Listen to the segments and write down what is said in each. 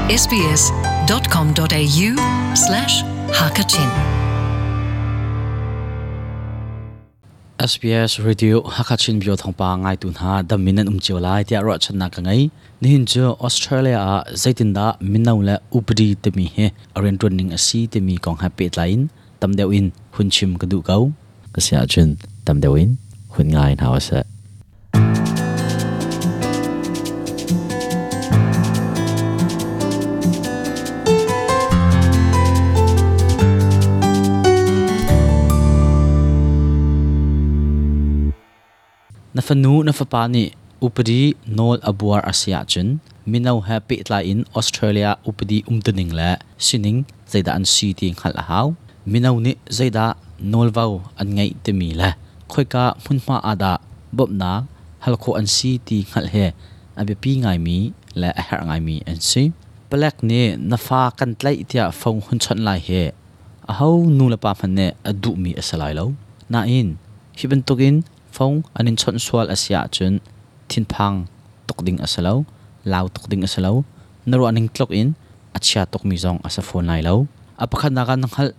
sbs.com.au/hakachin SBS Radio Hakachin Bio thawngpa ngaitu hna dam in nan um cio lai tiah ruahchannak ka ngei. Nihin cu Australia ah zeitindah mino le upadi timi hi a rianṭuan ning a si timi kong he pehtlai in tam deuh in hun chim ka duh ko. Ka si ahcun tam deuh in hun ngai hna usih. Na fanu na fapa nih upadi nawl a buar a si ahcun mino he pehtlai in Australia upadi umtuning le sining zeidah an si ti hngalh a hau. Mino nih zeidah nawlvo an ngeih timi le khoika hmunhma ah dah bawmhnak hal khawh an si ti hngalh hi a biapi ngaimi le a herh ngaimi an si. Palek nih na fa kan tlaih tiah phone hun chawnh lai hi aho nu le pa hmanh nih a duhmi a si lai lo. Nain hi bantukin phone an in chawnh sual a si ahcun thinphang tuk ding a si lo, lau tuk ding a si lo, na ruahning tluk in a chia tukmi zong a si fawn lai lo. A pakhatnak ah na hngalh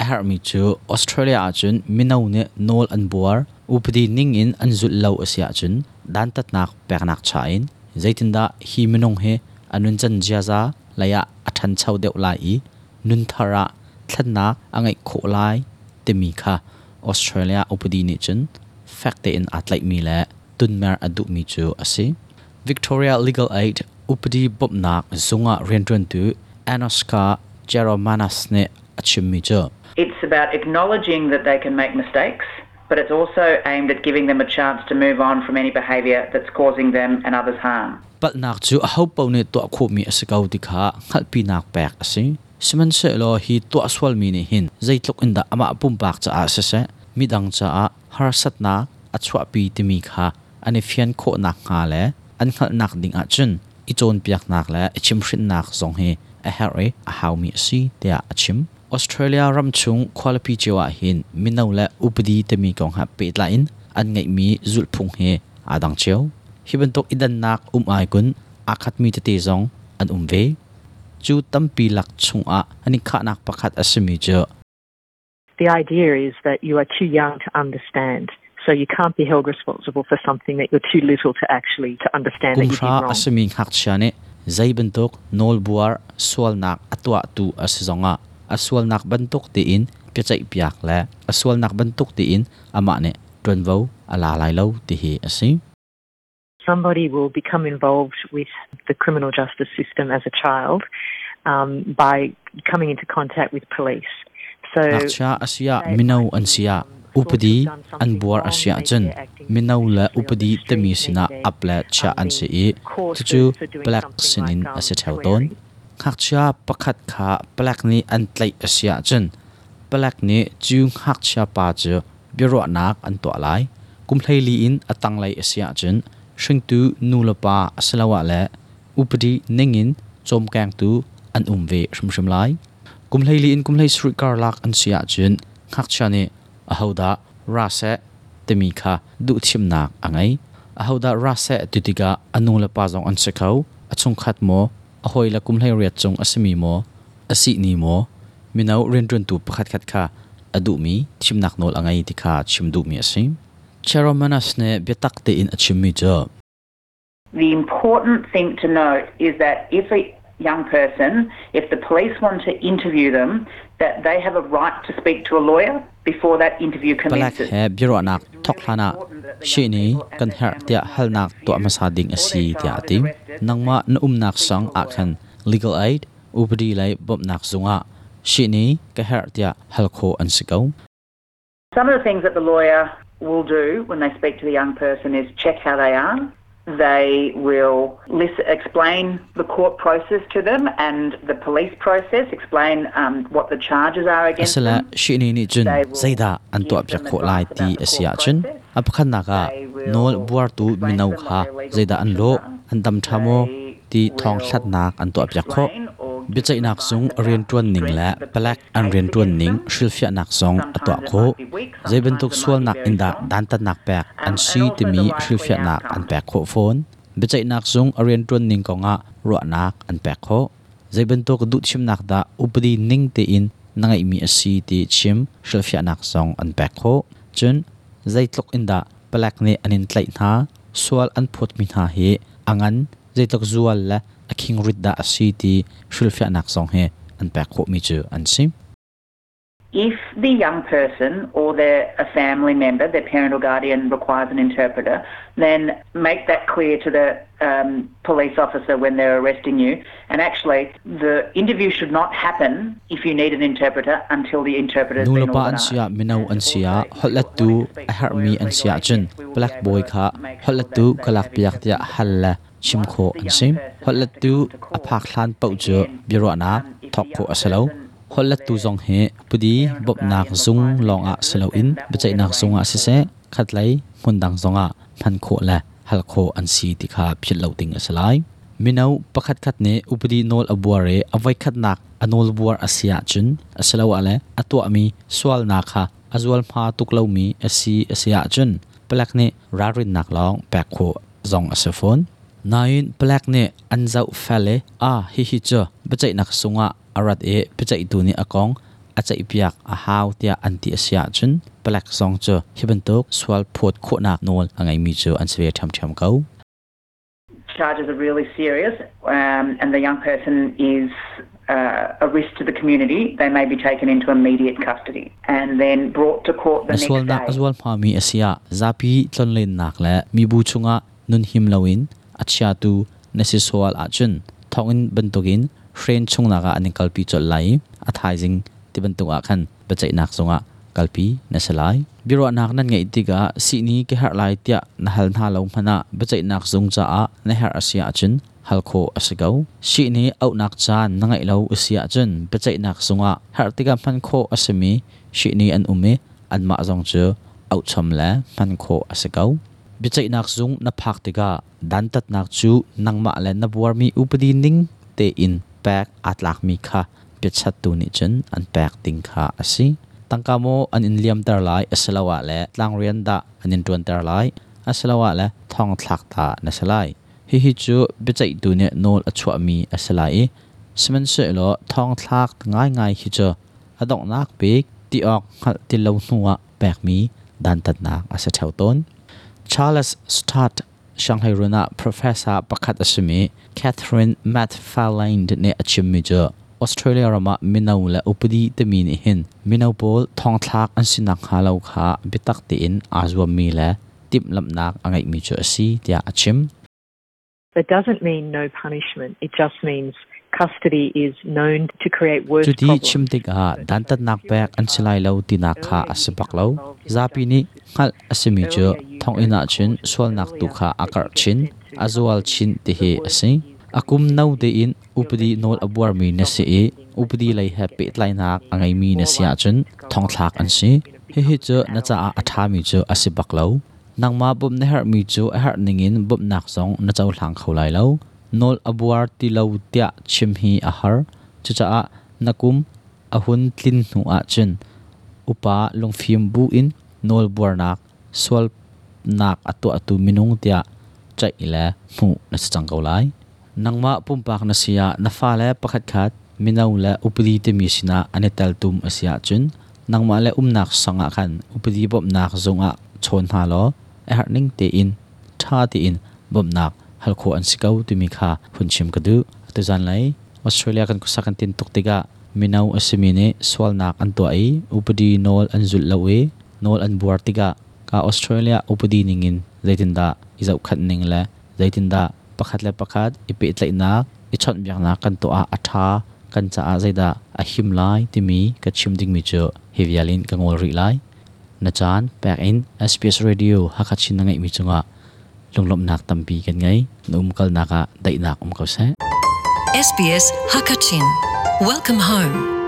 a herhmi cu Australia ahcun mino nih nawl an buar, upadi ning in an zulh lo a si ahcun dantatnak peknak cha in zeitindah hi minung hi a nuncan ziaza lei ah a ṭhancho deuh lai i nunthar ah thlennak a ngeih khawh lai timi kha Australia upadi nih cun fek tein aa tlaihmi le tunmer a duhmi cu a si. Victoria Legal Aid upadi bawmhnak zung ah rianṭuantu Anoska Jeromanas nih a chimmi cu It's about acknowledging that they can make mistakes, but it's also aimed at giving them a chance to move on from any behaviour that's causing them and others harm. Palhnak cu ahopaoh nih tuah khawhmi a si ko ti kha hngalhpinak pek a si. Sihmanhsehlaw hi tuah sualmi nih hin zeitluk in dah amah pumpak caah siseh, midang caah harsatnak a chuahpi timi kha an i fian khawh nakhnga le an hngalhnak ding ahcun i cawnpiaknak le i chimhhrinhnak zong hi a herh i a haumi a si tiah a chim. Australia ram chung khualipi cio ah hin mino le upadi timi kong he pehtlai in an ngeihmi zulhphung hi aa dang cio. Hi bantuk i dannak um ai kun aa khatmi tete zong an um ve. Cu tampi lak chungah an i khahnak pakhat a simi cu The idea is that you are too young to understand. So you can't be held responsible for something that you're too little to actually to understand that you did Kum hra wrong. a simi ngakchia nih zei bantuk nawlbuar sualnak a tuahtu a si zongah a sualnak bantuk tiin biaceihpiak le a sualnak bantuk tiin amah nih ṭuanvo a la lai lo ti hi a si. Somebody will become involved with the criminal justice system as a child by coming into contact with police. So Ngakchia a si ah mino an si ah upadi an buar a si ahcun mino le upadi timi sinah ap le chiah an si i cucu palek sinin a si ṭheo tawn. Ngakchia pakhat kha palek nih an tlaih a si ahcun palek nih cu ngakchia pa cu biaruahnak an tuah lai. Kum 14 in a tanglei a si ahcun hringtu nu le pa asiloah le upadi ningin cawmkengtu an um ve hrimhrim lai. Kum 14 in kum 17 karlak an si ahcun ngakchia nih ahodah ra seh timi kha duhthimnak a ngei. Ahodah ra seh ti tikah a nu le pa zong an si kho, a chungkhat maw, a hawile kum 18 cung a simi maw, a sihni maw, mino rianṭuantu pakhatkhat kha a duhmi thimnak nawl a ngei ti kha chim duhmi a si. Cheromanas nih biatak tein a chimmi cu The important thing to note is that if a young person, if the police want to interview them, that they have a right to speak to a lawyer before that interview Palek commences. he biaruahnak thawk hlanah shihni kan herh tiah halnak tuah hmasa ding a si tiah a ti. Nangmah na umnak sang ah khan legal aid upadi lei bawmhnak zungah shihni ka herh tiah hal khawh an si ko. Some of the things that the lawyer will do when they speak to the young person is check how they are. They will listen, explain the court process to them and the police process, explain what the charges are against Asila them. shihni nih cun zeidah an tuahpiak khawh lai ti a si ahcun a pakhatnak ah nawl buartu mino kha zeidah an lawh, an dam ṭha maw ti thawng hlatnak an tuahpiak khawh. Biaceihnak zung rianṭuan ning le palek an rianṭuan ning hrilhfiahnak zong a tuah khawh. Zei bantuk sualnak in dah dantatnak pek an si timi hrilhfiahnak an pek khawh fawn. Biaceihnak zung a rianṭuan ning kongah ruahnak an pek khawh. Zeibantuk duhthimnak dah upadi ning tein na ngeihmi a si ti chim hrilhfiahnak zong an pek khawh. Cun zeitluk in dah palek nih an in tlaih hna, sual an phawtmi hna hi a ngan zeitluk zual le a khingrit dah a si ti hrilhfiahnak zong hi an pek khawhmi cu an si. If the young person or their a family member, their parent or guardian requires an interpreter, then make that clear to the um, police officer when they're arresting you. And actually, the interview should not happen if you need an interpreter until the interpreter has been Nulepa an organised. si ah mino an si ah holhlettu a herhmi an si ahcun palek bawi kha holhlettu ka lakpiak tiah hal le chim khawh an si. Holhlettu a phak hlan paoh cu biaruahnak thawk khawh a si lo. Holhlettu zong hi pudi bawmhnak zung lawngah si loin biaceihnak zung ah siseh, khatlei hmundang zongah hman khawh le hal khawh an si ti kha philh lo ding a si lai. Mino pakhatkhat nih upadi nawl a buar i a voikhatnak a nawlbuar a si ahcun asiloah le a tuahmi sualnak kha a zualhma tuk lomi a si a si ahcun palek nih ralrinnak lawng pek khawh zong a si fawn. Nain palek nih an zoh fel i a hihi cu biaceihnak sungah a rat i biaceihtu nih a kong a ceihpiak a hau tiah an ti a si ahcun palek zong cu hi bantuk sual phawt khawhnak nawl a ngeimi cu an si ve ṭhiamṭhiam ko. Charges are really serious um, and the young person is uh, a risk to the community, they may be taken into immediate custody and then brought to court the Na next sualnak day. a zual hmami a si ah zapi tlonlennak le mibu chungah nun him loin a chiatu na si sual ahcun thonginn bantukin hren chungnak ah an in kalpi colh lai i a thaizing ti bantuk ah khan biaceihnak zungah kalpi na si lai. Biaruahnak nan ngeih tikah sihni ka herh lai tiah na hal hna lo hmanh ah biaceihnak zung caah na herh a si ahcun hal khawh a si ko. Sihni auhnak caan na ngeih lo a si ahcun biaceihnak zungah herh tikah hman khawh a simi sihni an um i anmah zong cu auhchom le hman khawh a si ko. Biaceihnak zung na phak tikah dantatnak cu nangmah le na buarmi upadi ning tein pek aa tlakmi kha biachattu nih cun an pek ding kha a si. Tangka maw an in liamter lai asiloah le tlangrian dah an in ṭuanter lai asiloah le thongthlak ta na si lai. Hihi cu biaceihtu nih nawl a chuahmi a si lai i sihmanhsehlaw thongthlak ngaingai hi cu a donghnak bik ti awk hngalh ti lo hnuah pekmi dantatnak a si ṭheo tawn. Charles Sturt Sianghleirun ah professor pakhat a simi Catherine McFarlane nih a chimmi cu Australia ram ah mino le upadi timi nih hin mino pawl thongthlak an si nakhnga lo kha biatak tein aa zuammi le timhlamhnak a ngeihmi cu a si tiah a chim. That doesn't mean no punishment. It just means custody is known to create worse Cuti problems. chim tikah dantatnak pek an si lai lo tinak kha a si bak lo. Zapi nih hngalh a simi cu thonginn ah cun sualnak tu kha a karh chin, a zual chin ti hi a si. A kum no tein upadi nawl a buarmi na si i upadi lei he pehtlainak a ngeimi na si ahcun thongthlak an si. Hihi cu na caah a ṭhami cu a si bak lo. Nangmah bawmh na herhmi cu a herh ningin bawmhnak zong na cohlang kho lai lo. Nawl a buar ti lo tiah chim hi a har. Cucaah na kum a hun tlin hnu ahcun upa lungfim bu in nawl buarnak sualnak a tuahtu minung tiah ceih le hmuh na si cang ko lai. Nangmah pumpak na si ah na fale pakhatkhat mino le upadi timi sinah an i teltum a si ahcun nangmah le umnak sang ah khan upadi bawmhnak zung ah chawn hna law a herh ning tein ṭha tein bawmhnak hal khawh an si ko timi kha hun chim ka duh. Atu zanlei Australia kan khuasak kan tin tuk tikah mino a simi nih sualnak an tuah i upadi nawl an zulh lo i nawl an buar tikah ka Australia upadi ningin zeitindah i zohkhanh ning le zeitindah pakhat le pakhat i pehtlaihnak i chawnhbiaknak kan tuah ah a ṭha kan caah zeidah a him lai timi ka chim dingmi cu hi vial in ka ngol rih lai. Na caan pek in SBS Radio Hakha Chin na ngeihmi cungah lunglawmhnak tampi kan ngei. Na umkalnak ah daihnak um ko seh. SBS Hakachin. Welcome home.